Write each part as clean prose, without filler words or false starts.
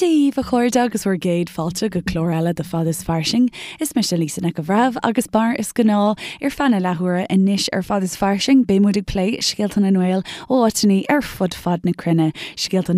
Dia dhaoibh a chairde agus bhur gcéad fáilte go clár eile de Fad is Fairsing. Is mise Lisa Nic an Bhreithimh agus mar is gnáth ar feadh na leathuaire anois ar Fad is Fairsing beidh muid ag plé scéalta na nGael ó áiteanna ar fud fad na cruinne, scéalta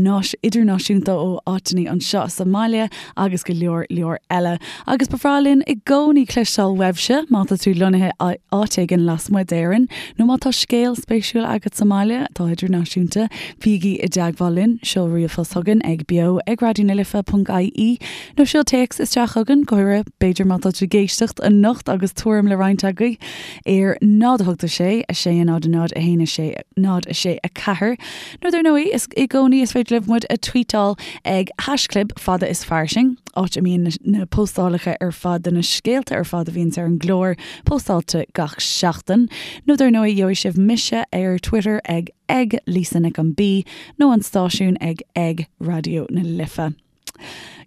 idirnáisiúnta ó áiteanna anseo sa mbaile agus go leor leor eile. Agus ba bhreá linn i gcónaí cloisteáil uaibhse má tá tú lonnaithe áit éigin lasmuigh d'Éirinn nó má tá scéal spéisiúil agat sa mbaile atá idirnáisiúnta, bígí i dteagmháil linn, seol ríomhphost chugainn ag beo ag raidionalife.ie nó seol téacs isteach chugainn, go háirithe b'fhéidir má tá tú ag éisteacht anocht agus tuairim le roinnt agaibh ar 0 8 6 6 0 0 1 6 0 6 4. Nó dar ndóigh, is i gcónaí is féidir libh muid a tweetáil ag haischlib fada is fairsing, áit a mbíonn na postálacha ar fad de na scéalta ar fad a bhíonns ar an gclár postáilte gach seachtain. Nó dar ndóigh, gheobhaidh sibh mise ar Twitter ag ag Lisa Nic an B nó an stáisiún ag ag Raidió na Life.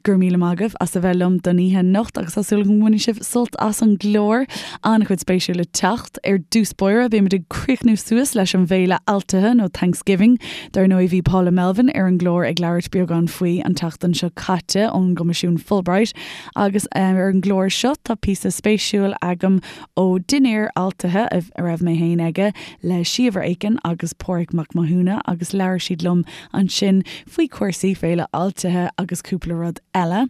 Go raibh míle maith agaibh as a bheith liom don oíche anocht agus tá súil agam go mbainfidh sibh sult as an gclár. An-chuid spéisiúil le teacht. Ar dtús báire, beimid ag críochnú suas leis an bhféile Altaithe nó Thanksgiving. Dar ndóigh bhí Paula Melvin ar an gclár ag labhairt beagán faoi an tseachtain seo caite ón gCoimisiún Fulbright agus ar an gclár seo tá píosa spéisiúil agam ó dinnéar Altaithe a raibh mé féin aige le Síobhra Aiken agus Pádraig Mac Mathúna agus labhair siad liom ansin faoi chúrsaí Féile Altaithe agus cúpla rud eile.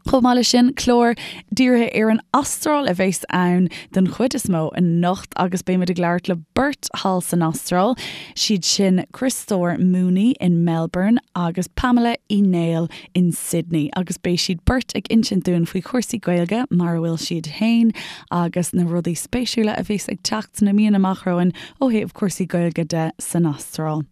Chomh maith leis sin, clár dírithe ar an Astráil a bheas ann den chuid is mó anocht agus beimid ag labhairt le beirt thall san Astráil, siad sin Criostóir Mooney in Melbourne agus Pamela Uí Néill in Sydney agus beidh siad beirt ag insint dúinn faoi chúrsaí Gaeilge mar a bhfuil siad féin agus na rudaí spéisiúla a bheas ag teacht sna míonna amach romhainn ó thaobh cúrsaí Gaeilge de san Astráil.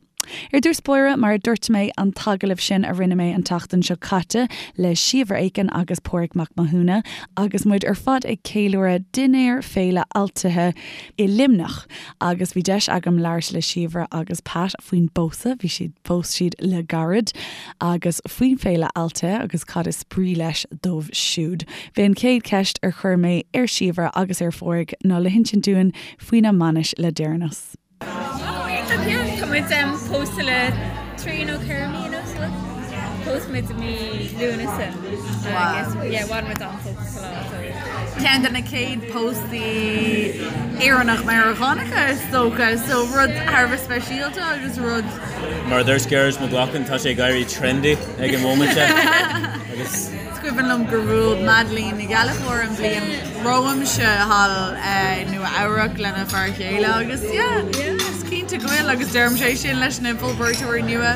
Ar dtús báire, mar a dúirt mé, an t-agallamh sin a rinne mé an tseachtain seo caite le Síobhra Aiken agus Pádraig Mac Mathúna agus muid ar fad ag ceiliúradh dinnéar Féile Altaithe i Luimneach agus bhí deis agam labhairt le Síobhra agus Pat faoin bpósadh, bhí siad, phós siad le gairid, agus faoin Féile Altaithe agus cad is brí leis dóibh siúd. B'é an chéad cheist ar chuir mé ar Síobhra agus ar Phádraig ná le hinsint dúinn faoina mbainis le deireanas. Tá muid pósta le trí nó ceithre mí anuas. Phós muid i mí Lúnasa agus yeah, bhain muid an-sult as an lá. So. Ceann de na chéad póstaí Éireannach Meiriceánacha is dócha, so rud thar a bheith speisialta agus rud. Mar a dúirt Gearóid Mac Lochlainn, tá sé ag éirí trendy ag an móimint seo agus. Is cuimhin liom gur bhuail Madeline Ní Ghallchóir an bhliain romhamsa thall i Nua Eabhrac lena fear chéile agus yeah, is cinnte go bhfuil agus deirimse é sin leis na Fulbrightóirí nua.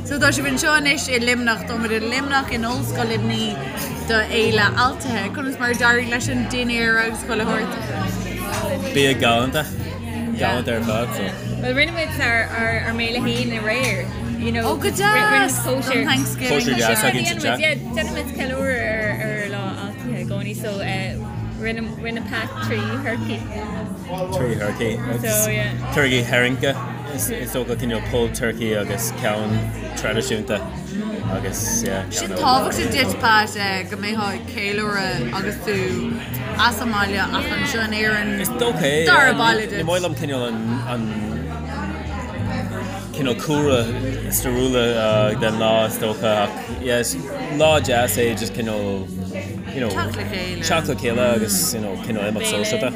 So tá sibh anseo anois i Luimneach, tá muid i Luimneach in Ollscoil Luimnigh do Fhéile Altaithe. Conas mar a d'éirigh leis an dinnéar agus chuile shórt? Bia galánta, galánta ar fad so. Well rinne muid ár ár ár mbéile féin aréir, you know. Oh go deas! Don Thanksgiving. Cóisir deas againn sa teach. Déanann muid ceiliúradh ar ar lá Altaithe i gcónaí so rinne rinne Pat trí thurcaí. Trí thurcaí. So yeah. Turcaí tharraingthe is is dócha cineál pulled turkey agus ceann traidisiúnta agus yeah ceann Sin tábhachtach duit Pat go mbeifeá ag ceiliúradh agus tú as an mbaile ach anseo in Éirinn Is dócha é. Dara baile duit. Ní maith liom cineál an an cineál cúlra stairiúla den lá is dócha ach yeah is lá deas é just cineál you know Teacht le chéile. teacht le chéile agus you know cineál imeacht sóisialta.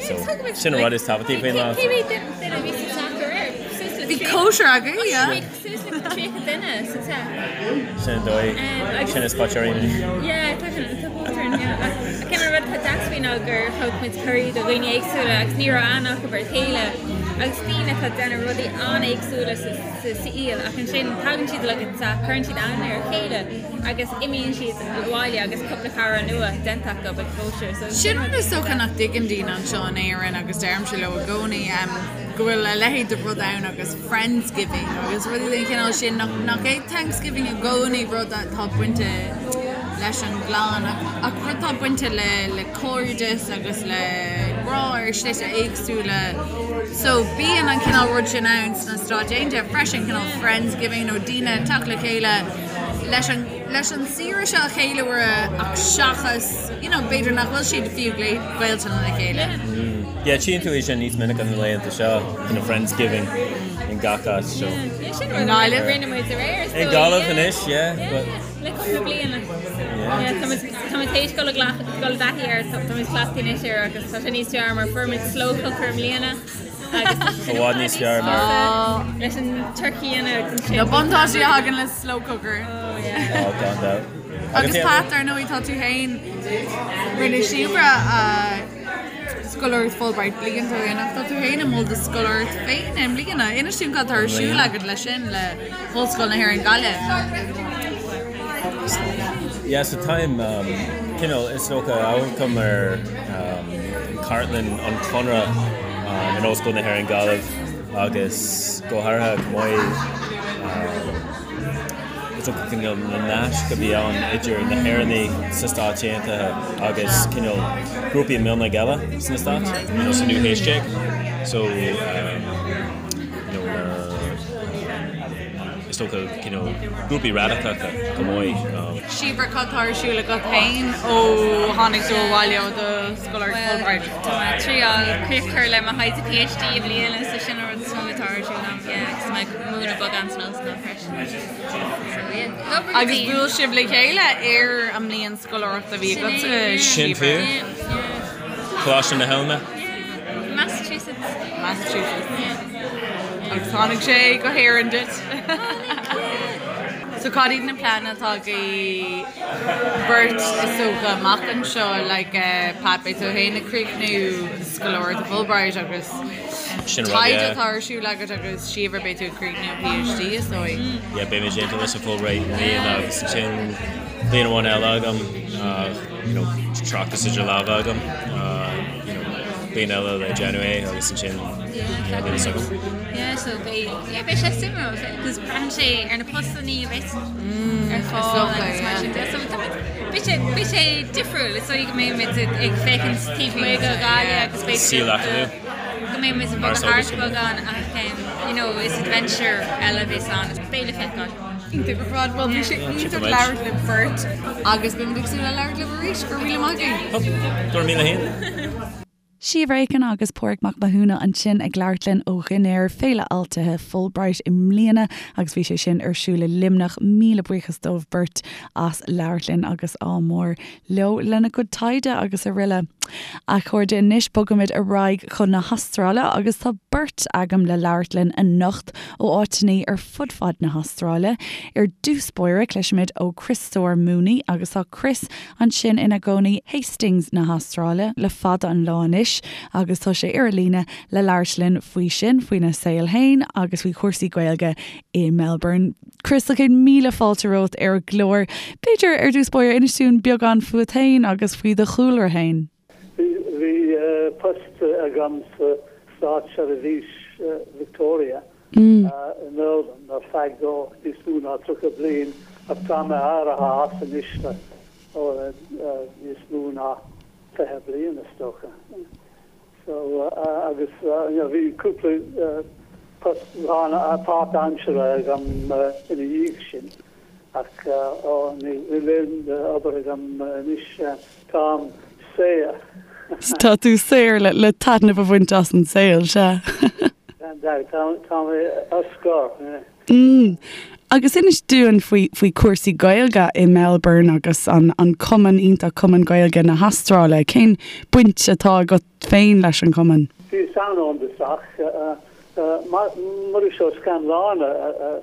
So sin an rud is tábhachtaí faoin lá. Cé mhéad duine a bhí sa teach aréir? Suas le Bhí cóisir againn, yeah. Bhí suas le 30 duine sa teach. Sin an dóigh. Sin is póit orainn. Yeah, tá sin tá póit orainn, yeah. Ach cén rud atá deas faoi ná gur thug muid cuirí do dhaoine éagsúla agus ní raibh aithne acu ar a chéile agus daoine atá ag déanamh rudaí an-éagsúla sa sa saol ach ansin tagann siad le go teach, cuireann siad aithne ar a chéile agus imíonn siad abhaile agus cúpla cara nua déanta acu ag cóisir. So Sin rud is dócha nach dtuigeann daoine anseo in Éirinn agus deirimse leo i gcónaí go bhfuil a leithéid de rud ann agus Friendsgiving agus rudaí den chineál sin nach nach é Thanksgiving i gcónaí rud atá bainte leis an gclann ach ach rud atá bainte le le cairdeas agus le grá ar shlite éagsúla. So bíonn an cineál rud sin ann sna Stáit Aontaithe freisin, cineál Friendsgiving nó daoine ag teacht le chéile leis an leis an saoire seo a cheiliúradh ach seachas you know b'fhéidir nach bhfuil siad fiú gaolta lena chéile. Yeah, tchíonn tú é sin níos minice na laethanta seo, you know, Friendsgiving in gach áit, so. Yeah, sin rud a rinne muid aréir, I nGaillimh anois, yeah, but. na bliana. Yeah, tá muid tá muid théis dul i gcleacht dul i dtaithí air, tá muid cleachtaithe anois air agus tá sé níos fearr mar fuair muid slow cooker i mbliana agus tá sé I bhfad níos fearr mar leis an turkey a dhéanamh agus ansin Na buntáistí a thagann le slow cooker. Oh yeah. Oh, gan dabht. Agus Pat, ar ndóigh, tá tú féin, rinne Síobhra a scoláireacht Fulbright blianta ó shin ach tá tú féin i mbun do scoláireacht féin i mbliana. Inis dúinn cad atá ar siúl agat leis sin le hOllscoil na hÉireann Gaillimh. Yeah, so táim um, cineál is dócha amharcaim ar um, cartlann an Chonradh um, in Ollscoil na hÉireann Gaillimh agus go háirithe chomh maith um, Is dócha cineál na naisc a bhí ann idir na hÉireannaigh sna Stáit Aontaithe agus cineál grúpaí mionlaigh eile sna Stáit, you know, sa naoú haois déag. So, um, you know, na, um, is dócha cineál grúpaí radacacha chomh maith. Um, Síobhra, cad tá ar siúl agat féin ó tháinig tú abhaile ó do scoláireacht Fulbright? Tá mé ag triáil críoch a chur le mo thaighde PhD i mbliana, so sin an rud is mó atá ar siúl agam, yeah, agus tá mé ag múineadh beagán san ollscoil freisin. Agus bhuail sibh le chéile ar an mbliain scoláireachta a bhí agatsa, Sin fíor. Coláiste na hOilme. Massachusetts. Massachusetts. Agus tháinig sé go hÉirinn duit. So cad iad na pleananna atá agaibh beirt is dócha amach anseo like Pat beidh tú féin ag críochnú scoláireacht Fulbright agus Sin rud, Taighde yeah. atá ar siúl agat agus Síobhra beidh tú ag críochnú PhD is dóigh. Yeah, beidh mé déanta leis an Fulbright i mbliana agus ansin bliain amháin eile agam, you know, tráchtas idir lámha agam, you know, bliain eile le déanamh é agus ansin Yeah, yeah, níl fhios agam. Yeah, so beidh, yeah, beidh sé suimiúil, because braitheann sé ar na postannaí a bheas ar fáil dócha, agus mar yeah. sin de. So tá muid, beidh sé, beidh sé difriúil, is dóigh go mbeidh muid ag féachaint taobh amuigh de Ghaillimh agus beidh Saol acadúil. go mbeidh muid ag bogadh thart beagán ach you know is adventure eile a bheas ann. Beidh le feiceáil. Iontach ar fad. Bhuel bhí sé iontach labhairt libh beirt agus beimid ag súil le labhairt libh arís. Go raibh míle maith agaibh. Go raibh míle féin. Síobhra Aiken agus Pádraig Mac Mathúna ansin ag labhairt linn ó dhinnéar Féile Fháiltithe Fulbright i mbliana agus bhí sé sin ar siúl i Luimneach. Míle buíochas dóibh beirt as labhairt linn agus ádh mór leo lena gcuid taighde agus araile. A chairde, anois bogaimid ar aghaidh chun na hAstráile agus tá beirt agam le labhairt linn anocht ó áiteannaí ar fud fad na hAstráile. Ar dtús báire, cloisfimid ó Criostóir Mooney agus tá Chris ansin ina gcónaí Hastings na hAstráile le fada an lá anois agus tá sé ar an líne le labhairt linn faoi sin, faoina saol féin agus faoi chúrsaí Gaeilge i Melbourne. Chris, céad míle fáilte romhat ar an gclár. B'fhéidir, ar dtús báire, inis dúinn beagán fúat féin agus faoi do chúlra féin. Bhí post agam sa Státseirbhís Victoria i Melbourne ar feadh níos mó ná 30 bliain ach tá mé éirithe as anois le níos mó ná 20 bliain is dócha. So, agus you know bhí cúpla post páirtaimseartha agam ina dhiaidh sin ach ó níl aon obair agam anois, táim saor. Tá tú saor le taitneamh a bhaint as an saol, sea. Gan dabht, tá mé ar scor. Mm. Agus inis dúinn faoi faoi cúrsaí Gaeilge i Melbourne agus an an cumann iontach Cumann Gaeilge na hAstráile. Cén baint atá agat féin leis an chumann? Bhíos ann ón dtosach. Muiris Ó Scanláin a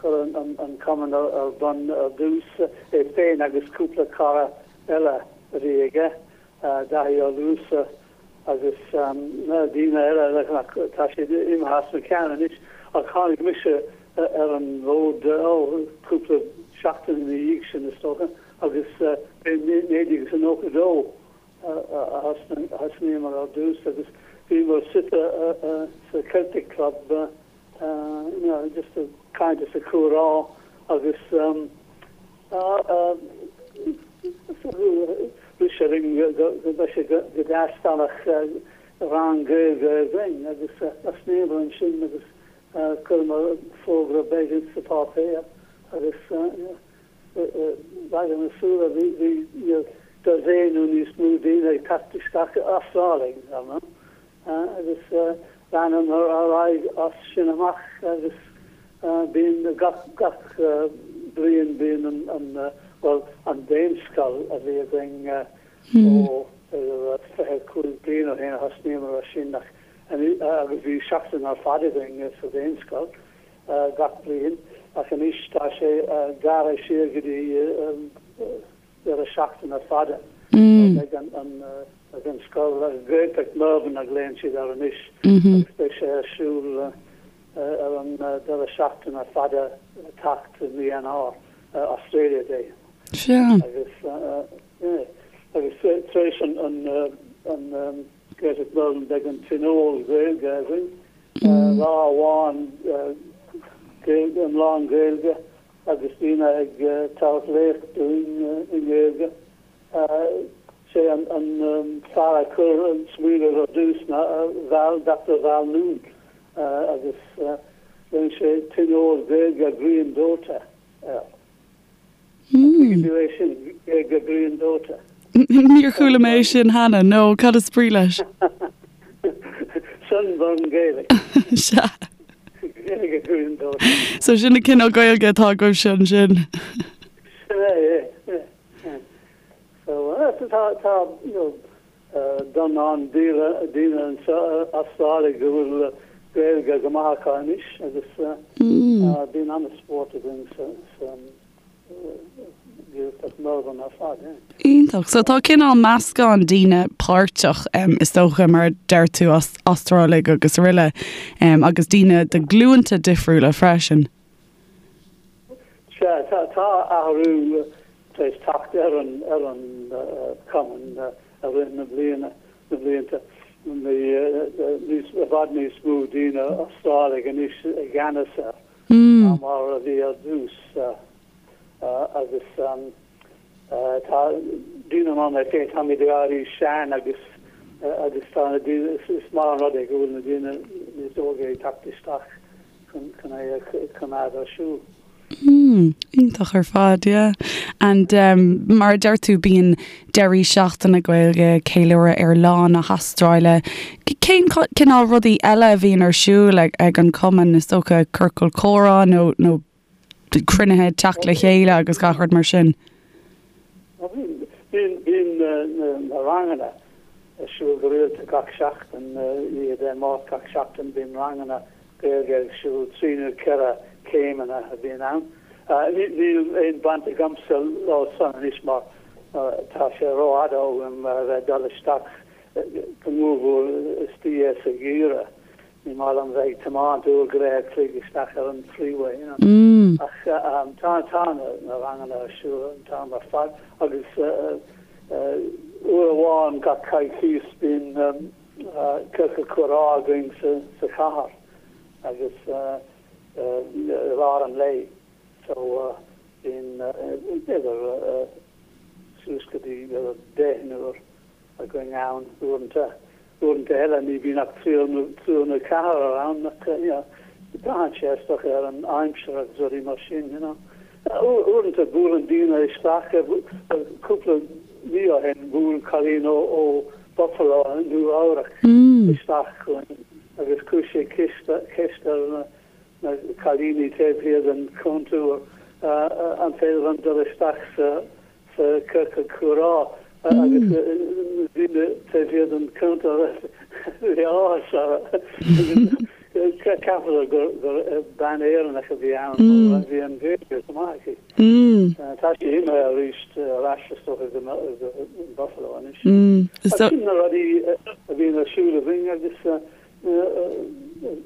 chuir an cumann ar bun ar dtús, é féin agus cúpla cara eile a bhí aige, Daithí Ó Luasa agus daoine eile ach tá siad imithe as mo cheann anois ach tháinig mise ar an bhfód ó cúpla seachtain ina dhiaidh sin is dócha agus b'é 1992 a thosnaíomar ar dtús agus bhíomar suite sa Celtic Club you know just ag caint is ag comhrá agus Rith sé linn go mbeadh sé go deas dá mbeadh rang Gaeilge againn agus thosnaíomar ansin agus chuireamar fógra beag sa pháipéar agus i na súile bhí dosaen nó níos mó daoine ag teacht isteach, Astrálaigh, ar ndóigh. Agus leanamar ar aghaidh as sin amach agus bíonn gach gach. bliain bíonn an, an, bhuel, an Daonscoil a bhí againn ó b'fhéidir 25 bliain ó shin a thosnaíomar ar sin ach agus bhí seachtain ar fad againn sa Daonscoil gach bliain ach anois tá sé gearrtha siar go dtí deireadh seachtaine fada. Beidh an beidh an scoil, Gaeltacht Melbourne a ghlaonn siad air anois agus beidh sé ar siúl ar an deireadh seachtaine fada le teacht i mí Eanáir, Australia Day. Sea. Agus yeah agus tar éis an an an Gaeltacht Melbourne beidh an Tionól Gaeilge againn, lá amháin Gaeilge, iomlán Gaeilge agus daoine ag tabhairt léacht dúinn i nGaeilge. Sé an fear a chuir an smaoineamh ar dtús ná Val, Doctor Val Noone agus rinne sé Tionól Gaeilge Grian Dóite air. An dtuigeann tú é sin, Gaeilge Grian Dóite? Níor chuala mé é sin cheana, no, cad is brí leis? Sunburn Gaelic. Sea. Gaeilge Grian Dóite. So sin an cineál Gaeilge atá agaibhse ansin. Sin é, é, é. So, tá, tá, you know, dornán daoine anseo Astrálaigh go bhfuil Gaeilge go maith acu anois agus bíonn an-spórt againn sa, sa Ghaeltacht Melbourne ar fad, yeah. Iontach. So tá cineál meascán daoine páirteach, is dócha, mar a deir tú, Astrálaigh agus araile, agus daoine de ghlúnta difriúla freisin. Sea, tá athrú tar éis teacht ar an ar an cumann i rith na bliana, na blianta. Níos, i bhfad níos mó daoine Astrálaigh anois i gceannas air ná mar a bhí ar dtús agus tá daoine mar mé féin, táimid ag éirí sean agus agus tá na daoine, is maith an rud é go bhfuil na daoine níos óige ag teacht isteach chun é a choimeád ar siúl. Mm, iontach ar fad, yeah. And um, mar a deir tú bíonn deirí seachtaine Gaeilge, ceiliúradh ar Lá na hAstráile. Cén cineál rudaí eile a bhíonn ar siúl ag, ag an cumann, is dócha ciorcal comhrá nó, nó cruinnithe teacht le chéile agus gach rud mar sin? Bíonn, bíonn na, na ranganna ar siúl go rialta gach seachtain, oíche Dé Máirt gach seachtain bíonn ranganna Gaeilge ar siúl, 3 nó 4 céimeanna a bhíonn ann. Níl aon baint agamsa leo san anois mar tá sé rófhada uaim a bheith ag dul isteach go mórmhór istigh sa gheimhreadh. Ní maith liom bheith ag tiomáint uair go leith a chloig isteach ar an freeway, you know. Ach tá tá na ranganna ar siúl an t-am ar fad agus uair amháin gach coicís bíonn ciorcal comhrá againn sa chathair agus i lár an lae so bíonn b'fhéidir suas go dtí b'fhéidir deichniúr againn ann uaireanta. Uaireanta eile ní bhíonn ach triúr nó triúr nó ceathrar ann ach you know braitheann sé is dócha ar an aimsir agus rudaí mar sin you know. Uaireanta buaileann daoine isteach, cúpla mí ó shin bhuail cailín ó Buffalo, Nua Eabhrac isteach chugainn agus chuir sí ceist ar na cailíní taobh thiar den chuntar an féidir liom dul isteach sa ciorcal comhrá agus na daoine taobh thiar den chuntar bhí áthas orthu agus cheapadar gur bean Éireannach a bhí ann mar bhí an Ghaeilge go maith aici. Tá sí imithe arís ar ais is dócha go Buffalo anois. Ach sin na rudaí a bhíonn ar siúl againn agus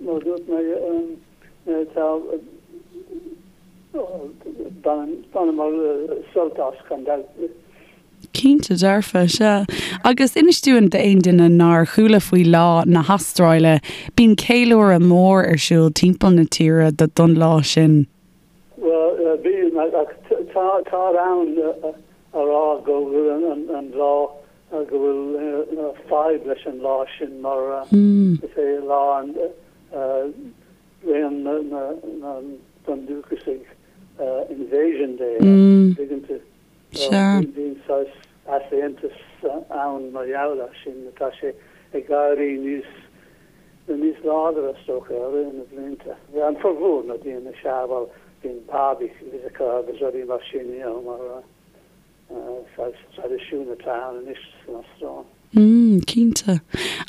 mar a dúirt mé tá baineamar sult as gan dabht. Cinnte dearfa, sea. Agus inis dúinn d'aon duine nár chuala faoi Lá na hAstráile, bíonn ceiliúradh mór ar siúl timpeall na tíre don lá sin. Bhuel, bíonn, ach táthar ann a rá go bhfuil an lá, go bhfuil fadhb leis an lá sin mar is é lá an raon na bundúchasaigh, Invasion Day, an dtuigeann tú? Bíonn saghas easaontas ann mar gheall air sin. Tá sé ag éirí níos níos láidre, is dócha, i rith na blianta. An formhór na daoine, sea, bhuel. Bíonn barbecues acu agus rudaí mar sin, you know, mar saghas traidisiún atá ann anois san Astráil. Mm, cinnte.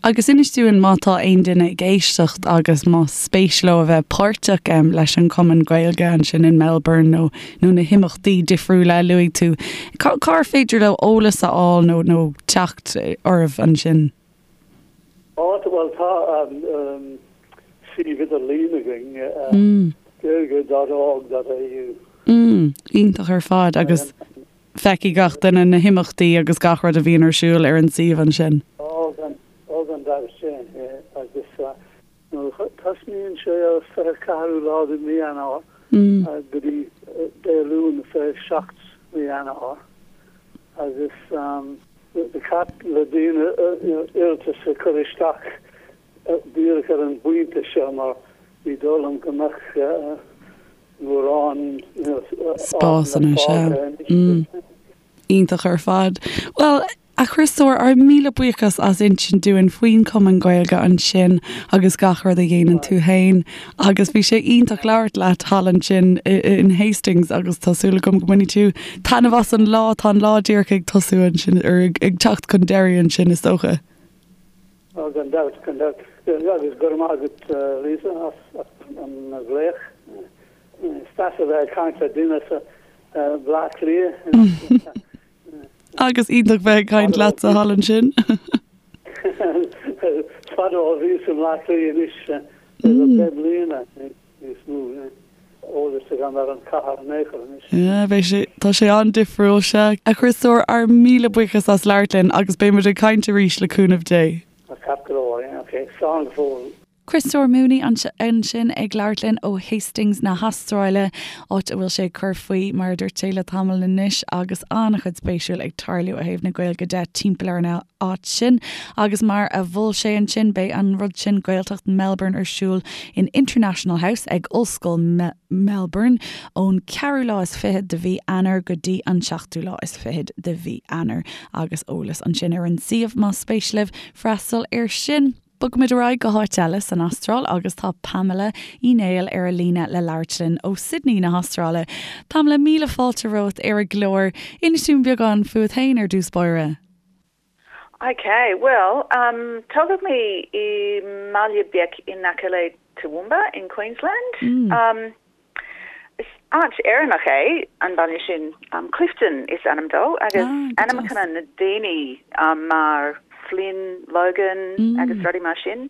Agus inis dúinn má tá aon duine ag éisteacht agus más spéis leo a bheith páirteach leis an Chumann Gaeilge ansin in Melbourne nó nó na himeachtaí difriúla a luaigh tú, cár féidir leo eolas a fháil nó nó teacht oraibh ansin? Á, bhuel tá suíomh idirlín againn, gaeilge dot org dot au. Mm, iontach ar fad agus feicfidh gach duine na himeachtaí agus gach rud a bhíonn ar siúl ar an suíomh ansin. Ó, gan, ó gan dabht sin, yeah, agus tosnaíonn sé ar 24ú lá de mhí Eanáir go dtí Dé Luain 27 mí Eanáir agus ba cheart le daoine iarratas a chur isteach díreach ar an bpointe seo mar ní dóigh liom go mbeadh mórán spásanna anois. Iontach ar fad. Bhuel, a Chriostóir, ár míle buíochas as insint dúinn faoin Chumann Gaeilge ansin agus gach rud a dhéanann tú fhéin agus bhí sé iontach labhairt leat thall ansin in Hastings agus tá súil agam go mbainfidh tú taitneamh as an lá, tá an lá díreach ag tosú ansin, ar ag teacht chun deiridh ansin is dócha. Ó, gan dabht, gan dabht. Agus go raibh maith agat, Lisa, as an nglaoch. Is deas a bheith ag caint le duine as Bleá Cliath. Agus iontach bheith ag caint leatsa thall ansin. Is fada ó bhíos i mBleá Cliath anois, deich mbliana. níos mó eolas agam ar an chathair in aon chor anois. Yeah, beidh sé, tá sé an-difriúil, sea. A Chriostóir, ár míle buíochas as labhairt linn agus beidh muid ag caint arís le cúnamh Dé. Ceart go leor, yeah, ok, slán go fóill. Criostóir Mooney ansin ag labhairt linn ó Hastings na hAstráile, áit a bhfuil sé ag cur faoi, mar a dúirt sé, le tamall anois agus an-chuid spéisiúil ag tarlú ó thaobh na Gaeilge de timpeall ar an áit sin. Agus mar a mhol sé ansin, beidh an rud sin, Gaeltacht Melbourne ar siúl in International House ag Ollscoil Melbourne ón ceathrú lá is fichead de mhí Eanáir go dtí an seachtú lá is fichead de mhí Eanáir agus eolas ansin ar an suíomh más spéis libh freastal air sin. Bogfaimid ar aghaidh go háit eile san Astráil agus tá Pamela Uí Néill ar an líne le labhairt linn ó Sydney na hAstráile. Pamela, míle fáilte romhat ar an gclár. Inis dúinn beagán fúat féin ar dtús báire. Ok, bhuel, um, tógadh mé i mbaile beag in aice le Toowoomba in Queensland. Um, is áit Éireannach é an baile sin, um, Clifton is ainm dó, agus ah, ainmneacha na daoine um, mar Flynn, Logan agus rudaí mar sin.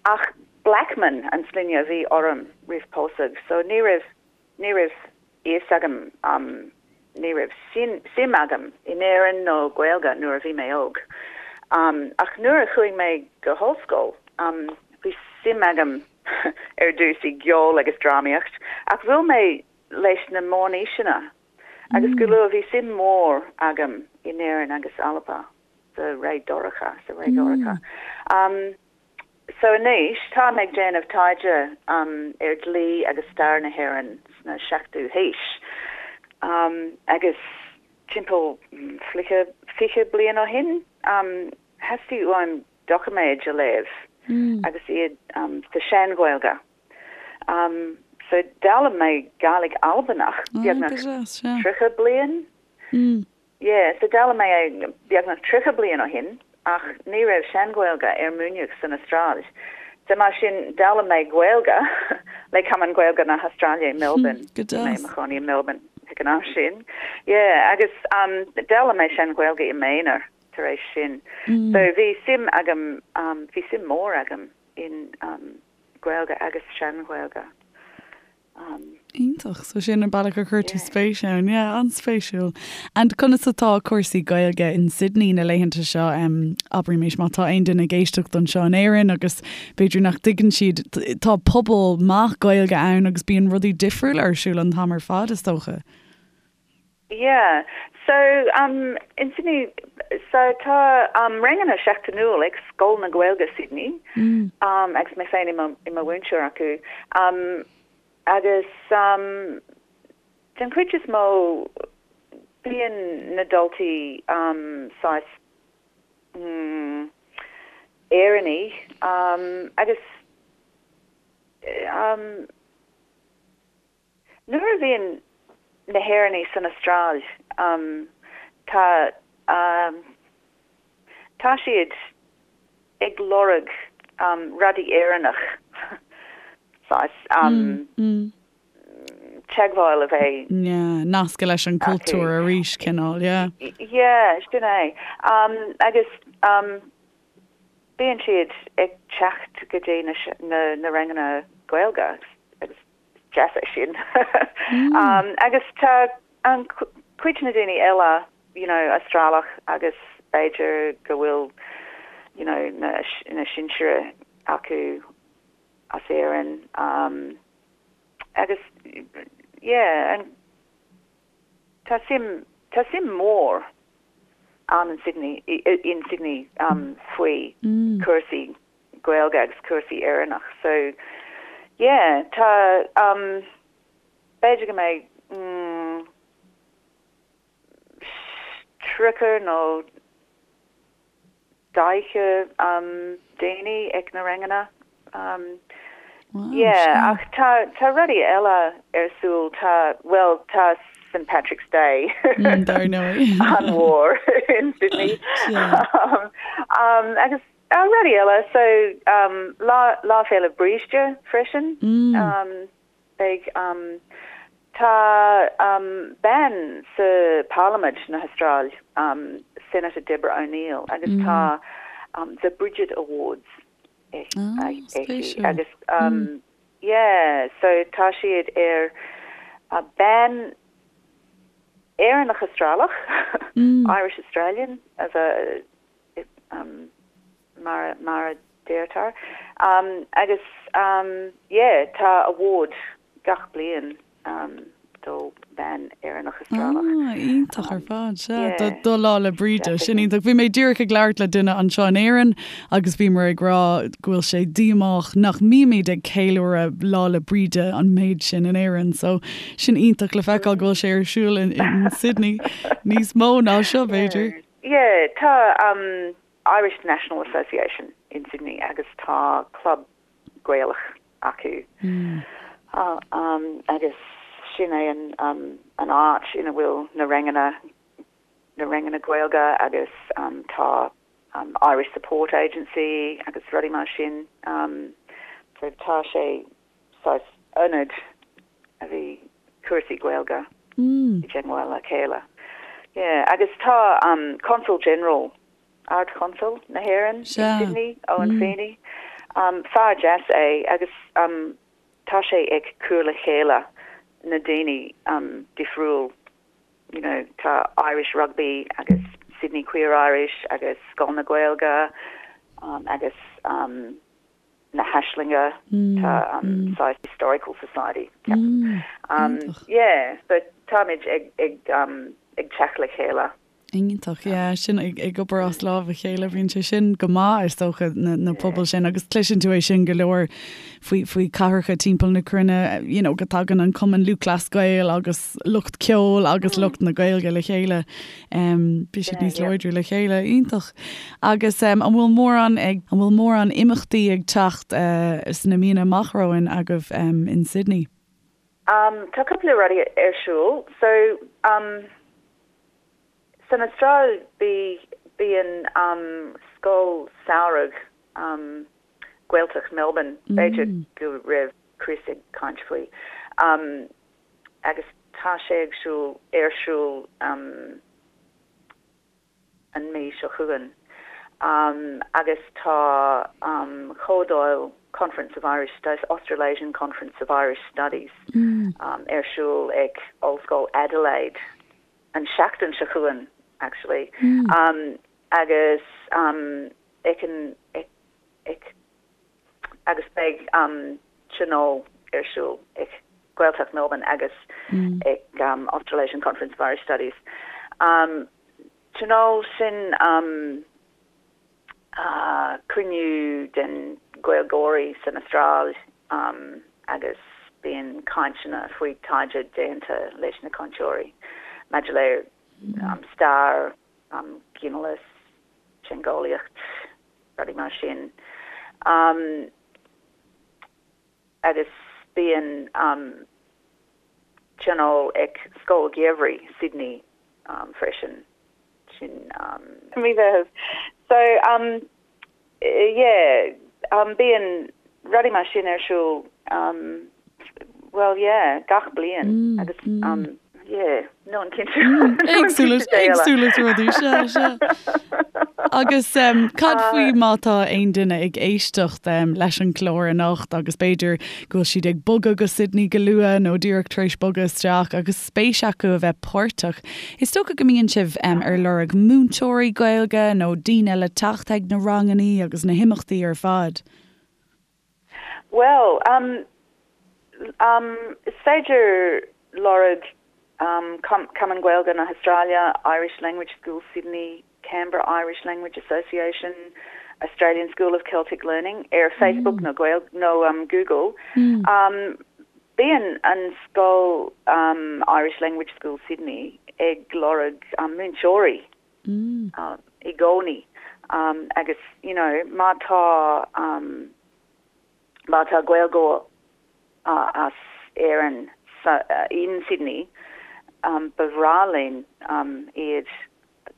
Ach Blackman an sloinne a bhí orm roimh pósadh, so ní raibh Ní raibh fhios agam, ní raibh suim agam in Éirinn nó Gaeilge nuair a bhí mé óg. Ach nuair a chuaigh mé go hollscoil, bhí suim agam ar dtús i gceol agus drámaíocht, ach bhuail mé leis na meánaoiseanna agus go luath bhí suim mhór agam in Éirinn agus Alba sa ré dorcha, sa ré dhorcha. So anois, táim ag déanamh taighde ar dhlí agus stair na hÉireann sna seachtú haois. Agus timpeall 20 bliain ó shin, theastaigh uaim doiciméid a léamh agus iad sa Sean-Ghaeilge. So d'fhoghlaim mé Gàidhlig Albanach beagnach 30 bliain. Yeah, so d'fhoghlaim mé é beagnach 30 bliain ó shin ach ní raibh Sean-Ghaeilge ar múineadh san Astráil. So mar sin d'fhoghlaim mé Gaeilge le Cumann Gaeilge na hAstráile i Melbourne. Go Bhí mé i mo chónaí i Melbourne ag an am sin. Yeah, agus um, d'fhoghlaim mé Sean-Ghaeilge i m'aonar tar éis sin. So bhí suim agam, um, bhí suim mór agam in um, Gaeilge agus Sean-Ghaeilge. Iontach. So sin an bealach a chuir tú spéis ann. Yeah, an-spéisiúil. And conas atá cúrsaí Gaeilge in Sydney na laethanta seo? Um, abraimis má tá aon duine ag éisteacht anseo in Éirinn agus b'fhéidir nach dtuigeann siad, tá pobal maith Gaeilge ann agus bíonn rudaí difriúla ar siúl an t-am ar fad, is dócha. Yeah. So, um, in Sydney, so tá um, ranganna seachtainiúil ag Scoil na Gaeilge Sydney, mm. um, agus mé féin i mo, i mo mhúinteoir acu. Um, agus um, den chuid is mó bíonn na daltaí um, saghas mm, Éireannaí um, agus um, Nuair a bhíonn na hÉireannaigh san Astráil, tá tá siad ag lorg rudaí Éireannach, saghas teagmháil a bheith. Yeah, nascadh leis an cultúr arís, cineál, yeah. Yeah, sin é. Agus bíonn siad ag teacht go dtí na ranganna Gaeilge agus is deas é sin. Agus tá an cuid na daoine eile, you know, Astrálach agus b'fhéidir go bhfuil, you know, na na sinsir acu as Éirinn agus yeah, an tá suim tá suim mór ann in Sydney in Sydney faoi cúrsaí Gaeilge agus cúrsaí Éireannach so yeah tá b'fhéidir go mbeidh mm 30 nó 40 daoine ag na ranganna. Yeah, ach tá tá rudaí eile ar siúl, tá, bhuel, tá St Patrick's Day Dar ndóigh. an-mhór in Sydney. Agus rudaí eile, so Lá Lá Féile Bríde freisin. Beidh, tá bean sa Parlaimint na hAstráil, Senator Deborah O'Neill, agus tá The Bridget Awards aici agus yeah, so tá siad ar bean Éireannach Astrálach, Irish Australian, as a mar mar a deirtear. Agus yeah, tá award gach bliain do bhean Éireannach Astrálach. Ah, iontach ar fad, sea. Do do Lá 'le Bríde, sin iontach. Bhí mé díreach ag labhairt le duine anseo in Éirinn agus bhíomar ag rá go bhfuil sé díomách nach mbímid ag ceiliúradh Lá 'le Bríde an méid sin in Éirinn. So sin iontach le feiceáil go bhfuil sé ar siúl in in Sydney níos mó ná seo, b'fhéidir. Yeah, tá Irish National Association in Sydney agus tá club Gaelach acu agus sin é an an áit ina bhfuil na ranganna na ranganna Gaeilge agus tá Irish Support Agency agus rudaí mar sin. So tá sé saghas ionad a bhí cúrsaí Gaeilge i dteagmháil le chéile. Yeah, agus tá Consul General, Ard-Chonsal na hÉireann in Sydney, Owen Feeney, fear deas é agus tá sé ag cur le chéile na daoine difriúil, you know, tá Irish Rugby agus Sydney Queer Irish agus Scoil na Gaeilge agus na hAislinge, tá saghas Historical Society, ceapaim. Yeah, so táimid ag ag ag teacht le chéile. Iontach, yeah, sin ag ag obair as lámh a chéile, bíonn sé sin go maith is dócha na na pobail sin agus cloiseann tú é sin go leor faoi faoi cathracha timpeall na cruinne, you know, go dtagann an Cumann Lúthchleas Gael agus lucht ceoil agus lucht na Gaeilge le chéile. Bíonn siad níos láidre le chéile. Iontach. Agus an bhfuil mórán ag, an bhfuil mórán imeachtaí ag teacht sna míonna amach romhainn agaibh in Sydney? Tá cúpla rudaí ar siúl. So, san Astráil bí, bíonn scoil samhraidh Gaeltacht Melbourne, b'fhéidir go raibh Chris ag caint faoi. Agus tá sé ag siúl, ar siúl an mí seo chugainn. Agus tá comhdháil Conference of Irish Studies, Australasian Conference of Irish Studies ar siúl ag Ollscoil Adelaide an seachtain seo chugainn actually. Agus ag an, ag, agus beidh tionól ar siúl ag Gaeltacht Melbourne agus ag Australasian Conference of Irish Studies. Tionól sin cruinniú den Gaeilgeoirí san Astráil agus bíonn cainteanna faoi taighde déanta leis na cainteoirí maidir le stair, ginealas, teangeolaíocht, rudaí mar sin. Agus bíonn. tionól ag Scoil Gheimhridh Sydney freisin, sin mí Mheithimh. So yeah, bíonn rudaí mar sin ar siúl bhuel yeah, gach bliain agus yeah, nílim cinnte. Éagsúlacht, éagsúlacht rudaí, sea, sea. Agus cad faoi má tá aon duine ag éisteacht leis an gclár anocht agus b'fhéidir go bhfuil siad ag bogadh go Sydney go luath nó díreach tar éis bogadh isteach agus spéis acu a bheith páirteach. Is dócha go mbíonn sibh ar lorg múinteoirí Gaeilge nó daoine le teacht ag na rangannaí agus na himeachtaí ar fad. Bhuel, is féidir lorg Cumann Gaeilge na hAstráile, Irish Language School Sydney, Canberra Irish Language Association, Australian School of Celtic Learning ar Facebook nó nó Google. Bíonn an scoil Irish Language School Sydney ag lorg múinteoirí i gcónaí agus you know má tá má tá Gaeilgeoir as Éirinn in Sydney ba bhreá linn iad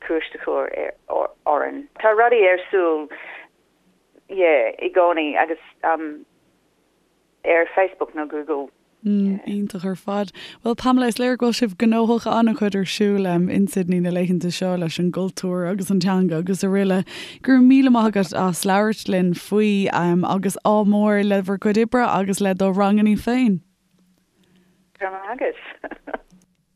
cuairt a chur orainn. Tá rudaí ar siúl yeah i gcónaí agus ar Facebook nó Google. Iontach ar fad. Bhuel Pamela, is léir go bhfuil sibh gnóthach, an-chuid ar siúl in Sydney na laethanta seo leis an gcultúr agus an teanga agus araile. Go raibh míle maith agat as labhairt linn faoi agus ádh mór le bhur gcuid oibre agus le do rangannaí féin. Go raibh maith agat.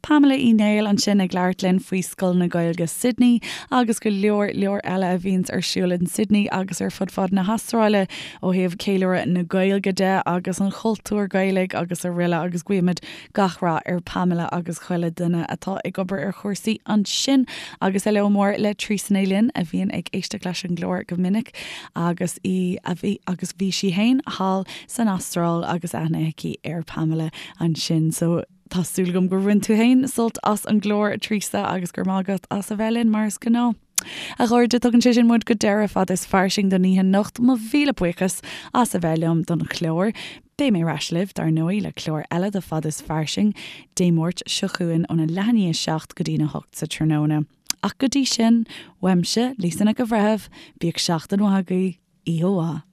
Pamela Uí Néill ansin ag labhairt linn faoi Scoil na Gaeilge Sydney agus go leor leor eile a bhíonns ar siúl in Sydney agus ar fud fad na hAstráile ó thaobh ceiliúradh na Gaeilge de agus an chultúir Ghaelaigh agus araile agus guímid gach rath ar Pamela agus chuile duine atá ag obair ar chúrsaí ansin agus heileo mór le Treasa Ní Fhloinn a bhíonn ag éisteacht leis an gclár go minic agus í a bhí agus bhí sí fhéin thall san Astráil agus aithne aici ar Pamela ansin so Tá súil agam gur bhain tú fhéin sult as an gclár, a Treasa, agus go raibh maith agat as a bheith linn, mar is gnáth. A chairde, tugann sé sin muid go deireadh Fada is Fairsing don oíche anocht. Mo mhíle buíochas as a bheith liom don chlár. Beidh mé ar ais libh, dar ndóigh, le clár eile de Fada is Fairsing, Dé Máirt seo chugainn óna leath i ndiaidh 7 go dtína 8 sa tráthnóna. Ach go dtí sin, uaimse, Lisa Nic an Bhreithimh, bíodh seachtain mhaith agaibh, oíche mhaith.